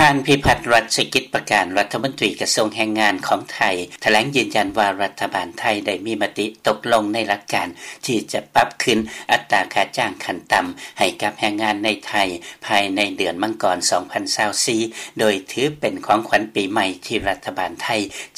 ທ່ານ ພິພັດ ລັດສະກິດປະການ ລັດຖະມົນຕີກະຊວງແຮງງານຂອງໄທ ຖະແຫຼງຢືນຢັນວ່າ ລັດຖະບານໄທໄດ້ມີມະຕິຕົກລົງໃນຫຼັກການ ທີ່ຈະປັບຂຶ້ນອັດຕາຄ່າຈ້າງຂັ້ນຕ່ຳໃຫ້ກັບແຮງງານໃນໄທ ພາຍໃນເດືອນມັງກອນ ສອງພັນຊາວສີ່ ໂດຍຖືເປັນຂອງຂວັນປີໃໝ່ທີ່ລັດຖະບານໄທ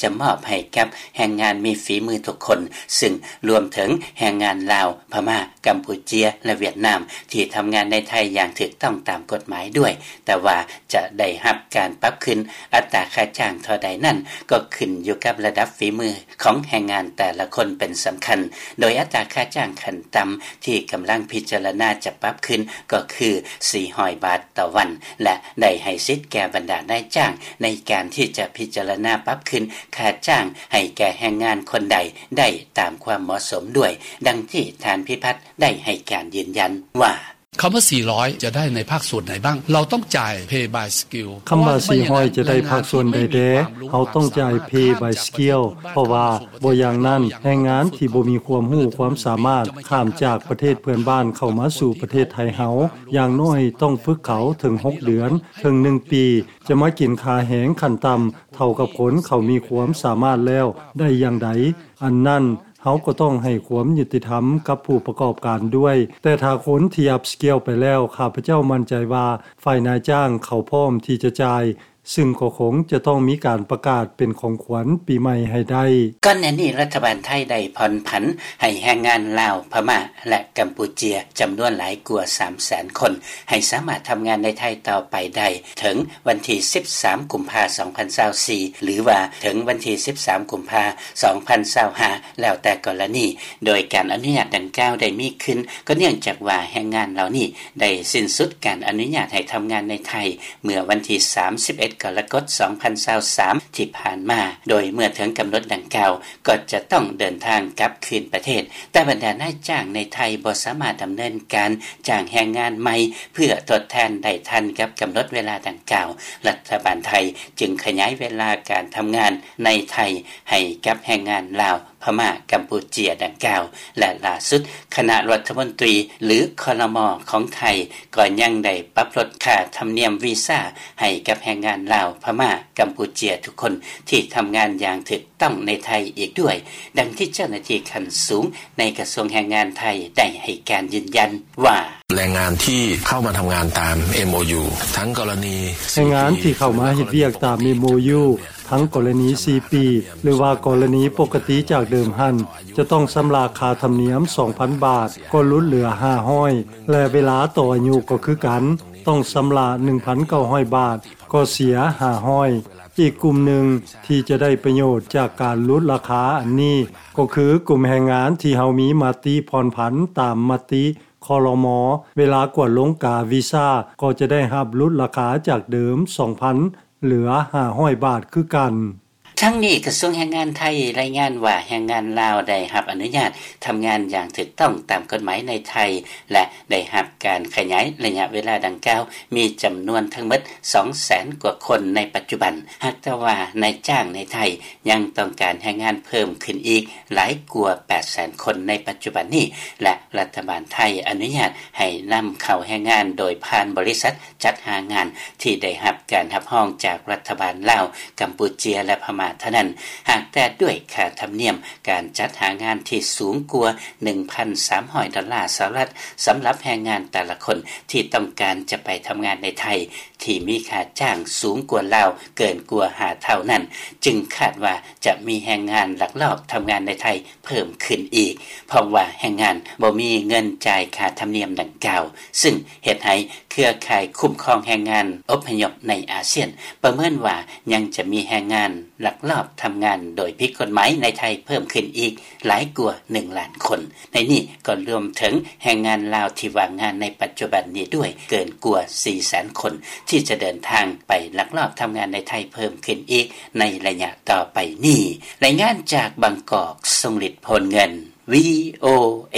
ຈະມອບໃຫ້ກັບແຮງງານມີຝີມືທຸກຄົນ ຊຶ່ງລວມເຖິງແຮງງານລາວ, ພະມ້າ, ກຳປູເຈຍ ແລະ ຫວຽດນາມ ທີ່ທຳງານໃນໄທຢ່າງຖືກຕ້ອງຕາມກົດໝາຍດ້ວຍ, ແຕ່ວ່າຈະໄດ້ຮັບການປັບຂຶ້ນອັດຕາຄ່າຈ້າງເທົ່າໃດນັ້ນ ກໍຂຶ້ນຢູ່ກັບລະດັບຝີມືຂອງແຮງງານແຕ່ລະຄົນເປັນສຳຄັນ, ໂດຍອັດຕາຄ່າຈ້າງຂັ້ນຕ່ຳທີ່ກຳລັງພິຈາລະນາຈະປັບຂຶ້ນກໍຄື ສີ່ຮ້ອຍບາດຕໍ່ວັນ ແລະ ໄດ້ໃຫ້ສິດແກ່ບັນດານາຍຈ້າງໃນການທີ່ຈະພິຈາລະນາປັບຂຶ້ນຄ່າຈ້າງໃຫ້ແກ່ແຮງງານຄົນໃດໄດ້ຕາມຄວາມເໝາະສົມດ້ວຍ, ດັ່ງທີ່ທ່ານ ພິພັດ ໄດ້ໃຫ້ການຢືນຢັນວ່າ: ຄຳວ່າສີ່ຮ້ອຍຈະໄດ້ໃນພາກສ່ວນໃດບ້າງ? ເຮົາຕ້ອງຈ່າຍ pay by skill. ຄຳວ່າສີ່ຮ້ອຍຈະໄດ້ພາກສ່ວນໃດແດ່? ເຮົາຕ້ອງຈ່າຍ pay by skill ເພາະວ່າບໍ່ຢ່າງນັ້ນ ແຮງງານທີ່ບໍ່ມີຄວາມຮູ້ຄວາມສາມາດຂ້າມຈາກປະເທດເພື່ອນບ້ານເຂົ້າມາສູ່ປະເທດໄທເຮົາ ຢ່າງໜ້ອຍຕ້ອງຝຶກເຂົາເຖິງຫົກເດືອນ ເຖິງໜຶ່ງປີ ຈະມາກິນຄ່າແຮງຂັ້ນຕ່ຳເທົ່າກັບຄົນເຂົາມີຄວາມສາມາດແລ້ວໄດ້ຢ່າງໃດ? ອັນນັ້ນ ເຮົາກໍຕ້ອງໃຫ້ຄວາມຍຸຕິທຳກັບຜູ້ປະກອບການດ້ວຍ, ແຕ່ຖ້າຄົນທີ່ upskill ໄປແລ້ວ, ຂ້າພະເຈົ້າໝັ້ນໃຈວ່າຝ່າຍນາຍຈ້າງເຂົາພ້ອມທີ່ຈະຈ່າຍ, ຊຶ່ງກໍຄົງຈະຕ້ອງມີການປະກາດເປັນຂອງຂວັນປີໃໝ່ໃຫ້ໄດ້. ກ່ອນໜ້ານີ້ລັດຖະບານໄທໄດ້ຜ່ອນຜັນໃຫ້ແຮງງານລາວ, ພະມ້າ ແລະ ກຳປູເຈຍ ຈຳນວນຫຼາຍກວ່າສາມແສນຄົນ ໃຫ້ສາມາດທຳງານໃນໄທຕໍ່ໄປໄດ້ ເຖິງວັນທີສິບສາມ ກຸມພາ ສອງພັນຊາວສີ່ ຫຼືວ່າເຖິງວັນທີສິບສາມ ກຸມພາ ສອງພັນຊາວຫ້າ ແລ້ວແຕ່ກໍລະນີ, ໂດຍການອະນຸຍາດດັ່ງກ່າວໄດ້ມີຂຶ້ນ ກໍເນື່ອງຈາກວ່າແຮງງານເຫຼົ່ານີ້ໄດ້ສິ້ນສຸດການອະນຸຍາດໃຫ້ທຳງານໃນໄທ ເມື່ອວັນທີສາມສິບເອັດ ກໍລະກົດ ສອງພັນຊາວສາມ ທີ່ຜ່ານມາ, ໂດຍເມື່ອເຖິງກຳນົດດັ່ງກ່າວ ກໍຈະຕ້ອງເດີນທາງກັບຄືນປະເທດ, ແຕ່ບັນດານາຍຈ້າງໃນໄທບໍ່ສາມາດດຳເນີນການຈ້າງແຮງງານໃໝ່ ເພື່ອທົດແທນໄດ້ທັນກັບກຳນົດເວລາດັ່ງກ່າວ, ລັດຖະບານໄທຈຶ່ງຂະຫຍາຍເວລາການທຳງານໃນໄທໃຫ້ກັບແຮງງານລາວ, ພະມ້າ, ກຳປູເຈຍດັ່ງກ່າວ ແລະ ລ່າສຸດຄະນະລັດຖະມົນຕີ ຫຼື ຄລມ ຂອງໄທ ກໍຍັງໄດ້ປັບລົດຄ່າທຳນຽມວີຊາໃຫ້ກັບແຮງງານລາວ, ພະມ້າ, ກຳປູເຈຍທຸກຄົນທີ່ທຳງານຢ່າງຖືກ ຕ້ອງໃນໄທອີກດ້ວຍ, ດັ່ງທີ່ເຈົ້າໜ້າທີ່ຂັ້ນສູງໃນກະຊວງແຮງງານໄທໄດ້ໃຫ້ການຢືນຢັນວ່າ: ແຮງງານທີ່ເຂົ້າມາເຮັດວຽກຕາມ MOU ທັງກໍລະນີສີ່ປີ ຫຼືວ່າກໍລະນີປົກກະຕິຈາກເດີມຫັ້ນ ຈະຕ້ອງຊຳລະຄ່າທຳນຽມສອງພັນບາດ ກໍຫຼຸດເຫຼືອຫ້າຮ້ອຍ ແລະ ເວລາຕໍ່ອາຍຸກໍຄືກັນ ຕ້ອງຊຳລະໜຶ່ງພັນເກົ້າຮ້ອຍບາດ ກໍເສຍຫ້າຮ້ອຍ. ອີກກຸ່ມໜຶ່ງທີ່ຈະໄດ້ປະໂຫຍດຈາກການຫຼຸດລາຄາອັນນີ້ ກໍຄືກຸ່ມແຮງງານທີ່ເຮົາມີມະຕິຜ່ອນຜັນຕາມມະຕິ ຄລມ ເວລາກວດລົງກາວີຊາ ກໍຈະໄດ້ຮັບຫຼຸດລາຄາຈາກເດີມສອງພັນ ເຫຼືອຫ້າຮ້ອຍບາດຄືກັນ. ທັງນີ້ກະຊວງແຮງງານໄທລາຍງານວ່າ ແຮງງານລາວໄດ້ຮັບອະນຸຍາດທຳງານຢ່າງຖືກຕ້ອງຕາມກົດໝາຍໃນໄທ ແລະ ໄດ້ຮັບການຂະຫຍາຍໄລຍະເວລາດັ່ງກ່າວ ມີຈຳນວນທັງໝົດສອງແສນກວ່າຄົນໃນປັດຈຸບັນ, ຫາກແຕ່ວ່ານາຍຈ້າງໃນໄທຍັງຕ້ອງການແຮງງານເພີ່ມຂຶ້ນອີກຫຼາຍກວ່າແປດແສນຄົນໃນປັດຈຸບັນນີ້ ແລະ ລັດຖະບານໄທອະນຸຍາດໃຫ້ນຳເຂົ້າແຮງງານໂດຍຜ່ານບໍລິສັດ ຈັດຫາງານທີ່ໄດ້ຮັບການຮັບຮອງຈາກລັດຖະບານລາວ, ກຳປູເຈຍ ແລະ ພະມ້າເທົ່ານັ້ນ, ຫາກແຕ່ດ້ວຍຄ່າທຳນຽມການຈັດຫາງານທີ່ສູງກວ່າໜຶ່ງພັນສາມຮ້ອຍດອນລາສະຫະລັດ ສຳລັບແຮງງານແຕ່ລະຄົນທີ່ຕ້ອງການຈະໄປທຳງານໃນໄທ ທີ່ມີຄ່າຈ້າງສູງກວ່າລາວເກີນກວ່າຫ້າເທົ່ານັ້ນ, ຈຶ່ງຄາດວ່າຈະມີແຮງງານລັກລອບທຳງານໃນໄທ ເພີ່ມຂຶ້ນອີກ ເພາະວ່າແຮງງານບໍ່ມີເງິນຈ່າຍຄ່າທຳນຽມດັ່ງກ່າວ, ຊຶ່ງເຮັດໃຫ້ເຄືອຂ່າຍຄຸ້ມຄອງແຮງງານອົບພະຍົບໃນອາຊຽນປະເມີນວ່າ ຍັງຈະມີແຮງງານລັກລອບທຳງານໂດຍຜິດກົດໝາຍໃນໄທເພີ່ມຂຶ້ນອີກຫຼາຍກວ່າໜຶ່ງລ້ານຄົນ. ໃນນີ້ກໍລວມເຖິງແຮງງານລາວທີ່ວ່າງງານໃນປັດຈຸບັນນີ້ດ້ວຍ ເກີນກວ່າສີ່ແສນຄົນ ທີ່ຈະເດີນທາງໄປລັກລອບທຳງານໃນໄທເພີ່ມຂຶ້ນອີກໃນໄລຍະຕໍ່ໄປນີ້. ລາຍງານຈາກບາງກອກ, ຊົງລິດ ໂພນເງິນ ວີໂອເອ.